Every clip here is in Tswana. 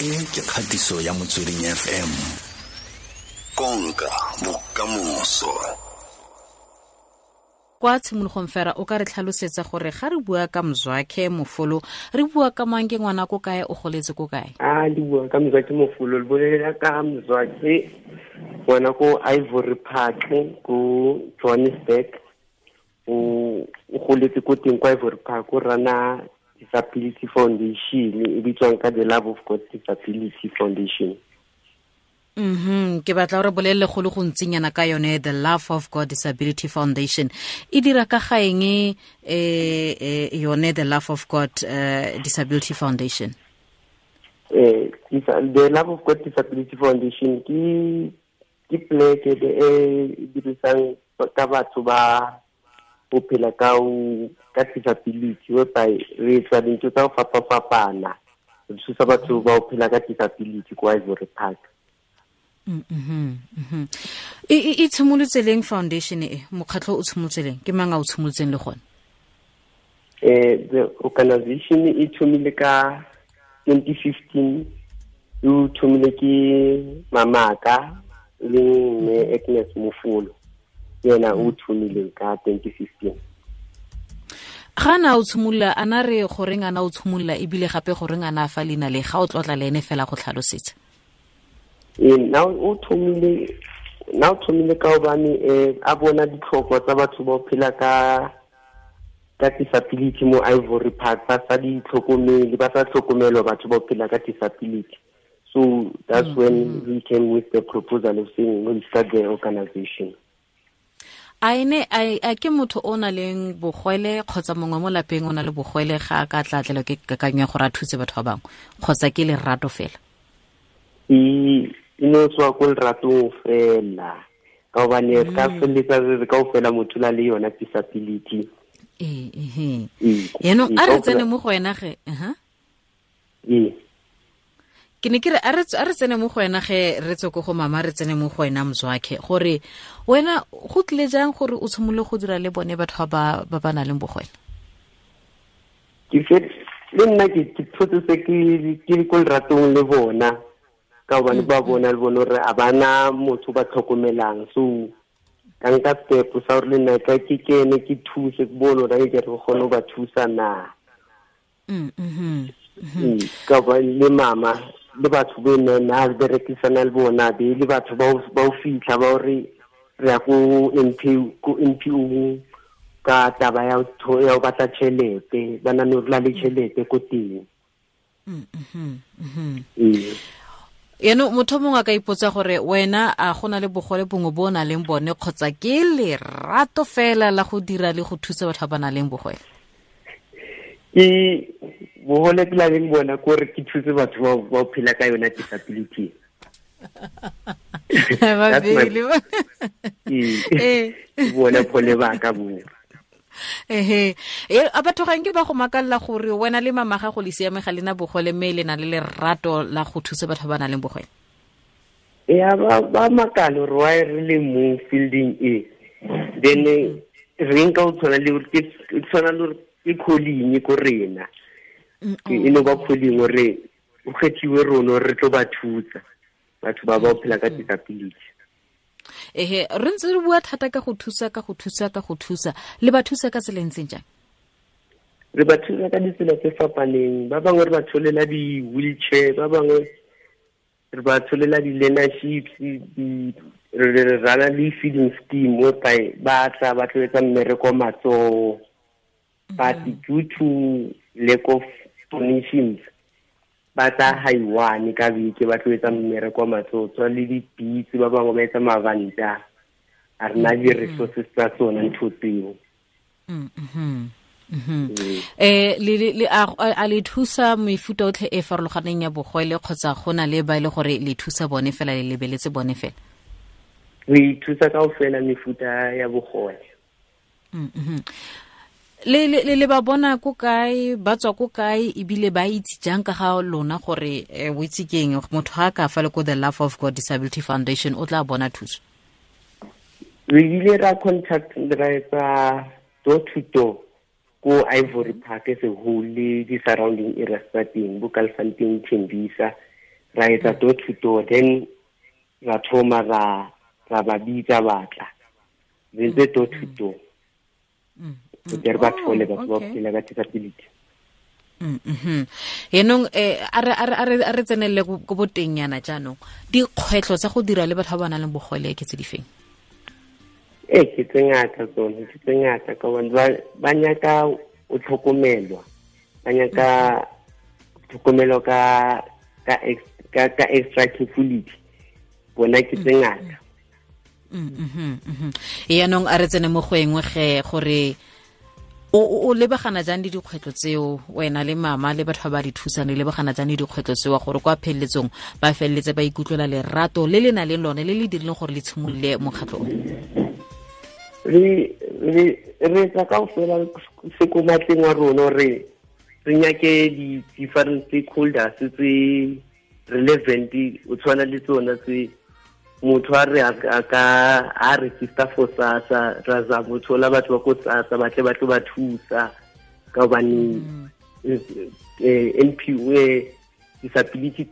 E ke kgatiso ya Motsweding FM. Konka bokamoso. Kwa tshimologong fela o ka re tlhalosetsa gore ga re bua ka Mzwakhe Mofolo re bua ka mang, ke ngwana ko kae, o goletse ko kae? A di bua ka Mzwakhe Mofolo, le bolela ka Mzwakhe ngwana ko Ivory Park ko Johannesburg. O goletse ko teng kwa Ivory Park, o rana Disability Foundation e bitswang ka The Love of God Disability Foundation. Ke batla gore bolelele go le gontsinyana ka yone The Love of God Disability Foundation. E dira ka ga eng yone The Love of God Disability Foundation? The Love of God Disability Foundation ke pleke e dirisang ka batho ba go phela ka disability, whereby re etsa dintho tsa go fapa-fapana, re thusa batho ba go phela ka disability kwa Ivory Park. E tshimolotse leng foundation e, mokgatlho o tshimolotse leng, ke mang a o tshimolotseng le gone? The organization e thomile ka 2015, e thomile ke mamaka le mme Agnes Mofolo, yena o thomile ka 2015. Ga na o tshimolola, a na re goreng a na o tshimolola, ebile gape goreng a na fa leina le, ga o tlotla le ene fela go tlhalosetsa? Na o thomile ka hobane a bona ditlhoko tsa batho ba phela ka disability mo Ivory Park, ba sa di tlhokomele, ba sa tlhokomelwa batho ba phela ka disability. So that's when we came with the proposal of saying we'll start the organization. A ene a ke motho o na leng bogwele kgotsa mongwe mo lapeng o na le bogwele ga a ka tla tlelwa ke kakanyo ya gore a thuse batho ba bangwe, kgotsa ke lerato fela? E no tswa ko leratong fela, ka hobane re ka feleletsa re kaofela motho la le yona disability. Yaanong a re tsene mo go wena ge, Ke ne ke re a re tsene mo go wena ge, re tswe ko go mama, re tsene mo go wena Mzwakhe, gore wena go tlile jang gore o tshimolole go dira le bone batho ba ba nang le bogwele? Ke le nna ke thotse se ke ko leratong le bona, ka hobane ba bona le bone hore a bana motho ba tlhokomelang. So ka nka step sa hore le nna ka ke kene ke thuse, ke bone hore ke re kgone ho ba thusa na. Ka ba le mama le batho be nna berekisana le bona, be le batho ba o fitlha ba hore re ya ko NPO ka taba ya ho batla tjhelete, ba na le le tjhelete ko teng. Yaanong motho mongwe a ka ipotsa gore wena a gona le bogole bongwe bo o nang le bone, kgotsa ke lerato fela la go dira le go thusa batho ba ba nang le bogole? Ke bogole ke la leng bona kore ke thuse batho ba phela ka yona disability. Bona bogole ba ka bo. A batho ga nke ba go makalla gore wena le mama gago le siame ga lena bogole, mme le na le lerato la go thusa batho ba ba nang le bogole? Ya ba makala gore why re le mo fielding e, then re nka o tshwana le ke tshwana le ke calling ko rena, e no ba calling gore o kgethiwe rona re tlo ba thusa batho ba ba phela ka disability. Ehe, re ntse re bua thata ka go thusa, ka go thusa, ka go thusa. Le ba thusa ka tsela e ntseng jang? Re ba thusa ka ditsela tse fapaneng. Ba bangwe re ba tsholela di-wheelchair, ba bangwe re ba tsholela di-learnerships, re rana le feeding scheme whereby ba tla ba tlo etsa mmereko matsoho. But due to lack of donations, ba tla haiwane ka beke ba tlo etsa mmereko matsoho, tswa le dipitse, ba bangwe ba etsa mabanta. A re na di-resources tsa tsona ntho tseo. Le a le thusa mefuta otlhe e farologaneng ya bogwele, kgotsa go na le ba e le gore le thusa bone fela, le lebeletse bone fela? Re thusa kaofela mefuta ya bogole. Le ba bona ko kae, ba tswa ko kae, ebile ba itse jang ka ga lona gore o itse keng motho ha ka fa le ko The Love of God Disability Foundation o tla bona thuso? Re ile ra contact ra etsa door to door ko Ivory Park as a whole le di surrounding areas tsa teng, bo Kalfontein, Tembisa. Ra etsa door to door, then ra thoma ra ba bitsa batla. Re ntse door to door. Re ba thole batho ba phela ka disability. Yanong a re tsenelele ko boteng yana jaanong, dikgwetlho tsa go dira le batho ba ba nang le bogole ke tse di feng? Ee, ke tse ngata tsone, ke tse ngata ka gobane ba nyaka o tlhokomelwa, ba nyaka tlhokomelo ka extra carefulity. Bona ke tse ngata. Yaanong a re tsene mo go engwe ge gore o lebagana jang le dikgwetlho tseo, wena le mama le batho ba ba di thusang, le lebagana jang le dikgwetlho tseo gore kwa pheleletsong ba feleletse ba ikutlwela lerato le le nang le lone le le dirileng gore le tshimolole mokgatlho o? Re etsa kaofela se ko matleng wa rona gore re nyake di-different stakeholders tse relevant, o tshwana le tsona tse motho a re a ka a register for SASSA, ra zama ho thola batho ba ko SASSA ba tle ba tlo ba thusa ka hobane NPO disability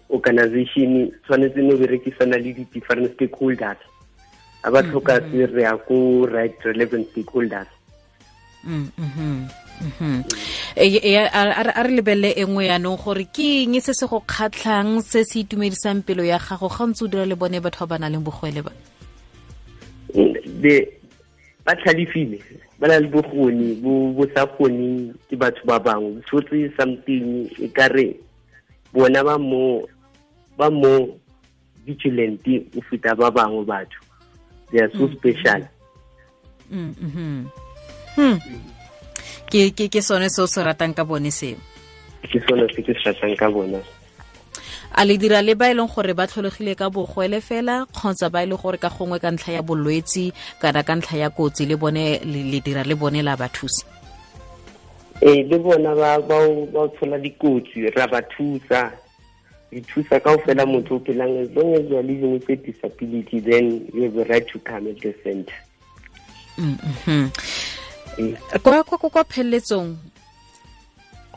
organization tshwanetse no berekisana le di-different stakeholders. A ba tlhoka se re ya ko right relevant stakeholders. A re lebelele e nngwe yaanong gore ke eng se se go kgatlhang, se se itumedisang pelo ya gago ga ntse o dira le bone batho ba ba nang le bogole ba? Ba tlhalefile, ba na le bokgoni bo sa kgoneng ke batho ba bangwe. Tshotse something e ka re bona ba mo vigilant o feta ba bangwe batho. They are so special. Ke sone se o se ratang ka bone seo? Ke sone se ke se ratang ka bona. A le dira le ba e leng gore ba tlholegile ka bogwele fela kgotsa ba e leng gore ka gongwe ka ntlha ya bolwetsi kana ka ntlha ya kotsi le bone le dira le bone la ba thusa? Ee, le bona ba tshola dikotsi, ra ba thusa. Re thusa kaofela motho o phelang, as long as you are living with a disability, then you have a right to come at the center. Kwa pheleletsong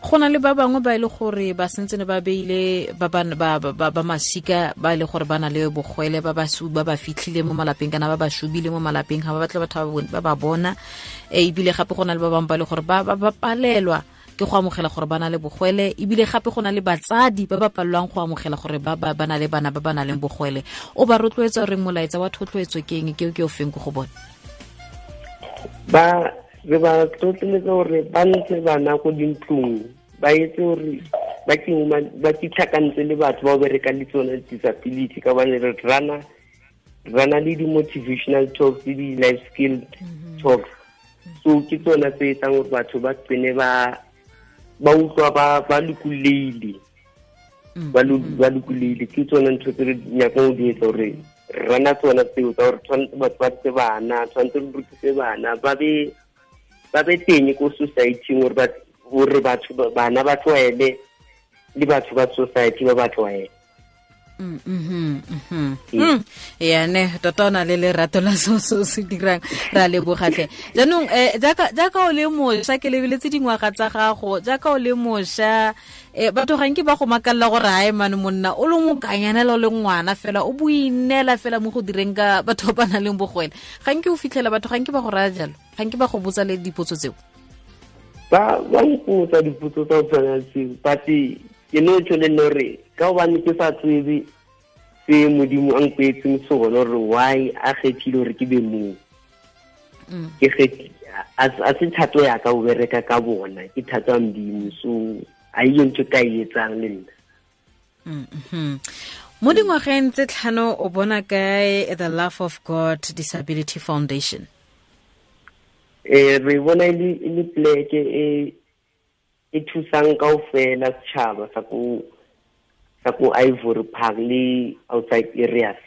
go na le ba bangwe ba e le gore ba sentse ne ba beile ba masika ba e le gore ba na le bogwele, ba ba fitlhile mo malapeng kana ba ba shubile mo malapeng, ga ba batle batho ba ba bona. Ebile gape go na le ba bangwe ba e le gore ba palelwa ke go amogela gore ba na le bogwele, ebile gape go na le batsadi ba ba palelwang go amogela gore ba na le bana ba ba nang le bogwele. O ba rotloetsa gore molaetsa wa thotloetso ke eng, ke o feng ko go bone? Ba re ba tlotleletsa gore ba ntshe bana ko dintlong, ba etse gore ba kitlhakantse le batho ba berekang le tsone disability, ka gobane re rana le di-motivational talks le di-life skill talks. So ke tsona tse etsang gore batho ba tsene ba utlwa ba lokolohile, ba lokolohile. Ke tsona ntho tse re nyakang ho di etsa, gore rana tsona tseo tsa gore tshwanetse batho ba tse bana, tshwanetse re rutise bana ba be teng ko society-eng, gore batho bana ba tlwaele le batho ba society ba ba tlwaele. Ya ne tota o na le lerato la se se dirang, ra lebogatlhe. Jaanong jaaka o le mošwa, ke lebeletse dingwaga tsa gago, jaaka o le mošwa, batho ga nke ba go makalela gore hae mane monna o le mokanyanela o le ngwana fela o boinela fela mo go direng ka batho ba ba nang le bogwele. Ga nke o fitlhela batho ga nke ba go raya jalo, ga nke ba go botsa le dipotso tseo? Ba mpotsa dipotso tsa go tshwana le tseo, but ke no tšho le nna gore ka gobane ke sa tsebe se Modimo a mpeetseng sone, gore why a kgethile gore ke be moo. Ke a se thato ya ka ho bereka ka bona, ke thato ya Modimo, so a iyo ntho ka e etsang le nna. Mo dingwageng tse 5 o bona kae The Love of God Disability Foundation? Re bona e le pleke e thusang kaofela setjhaba sa ko Ivory Park le outside areas.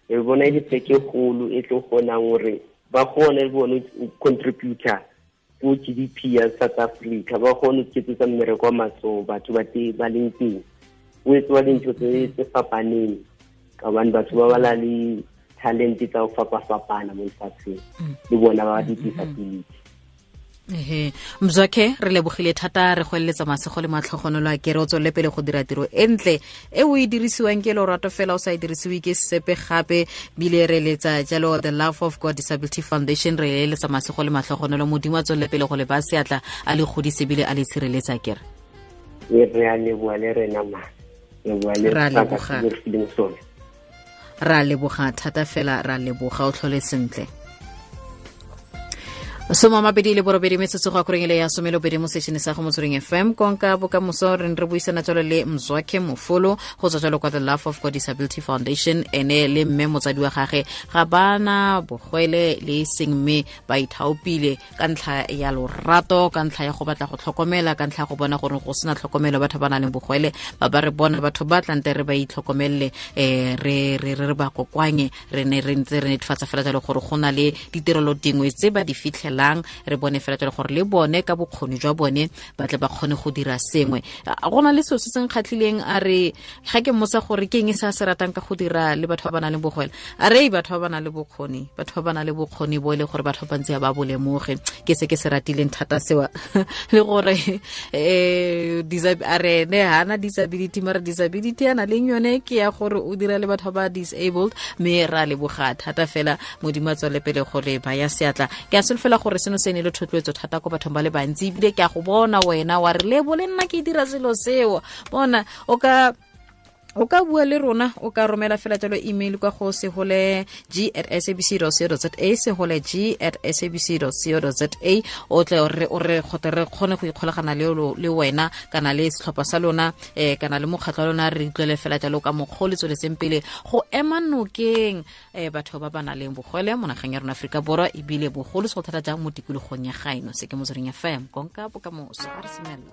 Re bona e le pleke e kgolo e tlo kgonang hore ba kgone le bone ho contributor ko GDP ya South Africa, ba kgone ho iketsetsa mmereko wa matsoho batho ba ba leng teng. Ho etsuwa dintho tse fapaneng ka hobane batho ba bala le talent tsa ho fapafapana mo lefatsheng, le bona ba di-disability. Ehe, Mzwakhe, re lebogile thata, re go eletsa masego le matlhogonolo a kere o tswelele pele go dira tiro e ntle e o e dirisiwang ke lorato fela, o sa e dirisiwe ke sepe gape. Bile re eletsa jalo The Love of God Disability Foundation, re eletsa masego le matlhogonolo. Modimo a tswelele pele go le ba seatla, a le godise bile a le tshireletsa kere. Re a leboa le rena ma, re a leboga, ra leboga thata fela, ra leboga, o tlhole sentle. 28 metsotso go akoreng ele ya 12 mo sešene sa go Motsweding FM, konka bokamoso. Re re buisana jalo le Mzwakhe Mofolo go tswa jalo kwa The Love of God Disability Foundation. Ene le mme motsadi wa gage ga bana bogwele le e seng, mme ba ithaopile ka ntlha ya lorato, ka ntlha ya go batla go tlhokomela, ka ntlha ya go bona gore go sena tlhokomelo batho ba nang le bogwele ba ba re bona batho ba tlante re ba itlhokomelele, re re re ba kokoanye. Re ne re ntse re netefatsa fela jalo gore go na le ditirelo dingwe tse ba di fitlhelang, re bone fela jalo gore le bone ka bokgoni jwa bone ba tle ba kgone go dira sengwe. Go na le selo se se nkgatlhileng, a re ga ke mmotsa gore ke eng se a se ratang ka go dira le batho ba ba nang le bogwele, a re batho ba ba nang le bokgoni, batho ba ba nang le bokgoni bo e le gore batho ba bantsi ba bo lemoge. Ke se ke se ratileng thata sewa, le gore a re ne hana disability, mara disability a na leng yone ke ya gore o dira le batho ba disabled. Mme ra leboga thata fela, Modimo a tswele pele go le baya seatla. Ke a solofela gore seno se ne le thotloetso thata ko bathong ba le bantsi, ebile ke a go bona wena wa re lebo le nna ke dira selo seo. Bona o ka bua le rona, o ka romela fela jalo email kwa go seholeg@sabc co za, seholeg@sabc co za. O tle o re gote re kgone go ikgolagana le wena kana le setlhopha sa lona, kana le mokgatlho wa lona, re utlwele fela jalo ka mokgwa o le tsweletseng pele go ema nokeng batho ba ba nang le bogole mo nageng ya rona Aforika Borwa, ebile bogolo se go thata jang mo tikologong ya gaeno. Se ke Motsweding FM, konka bokamoso. A re semelele.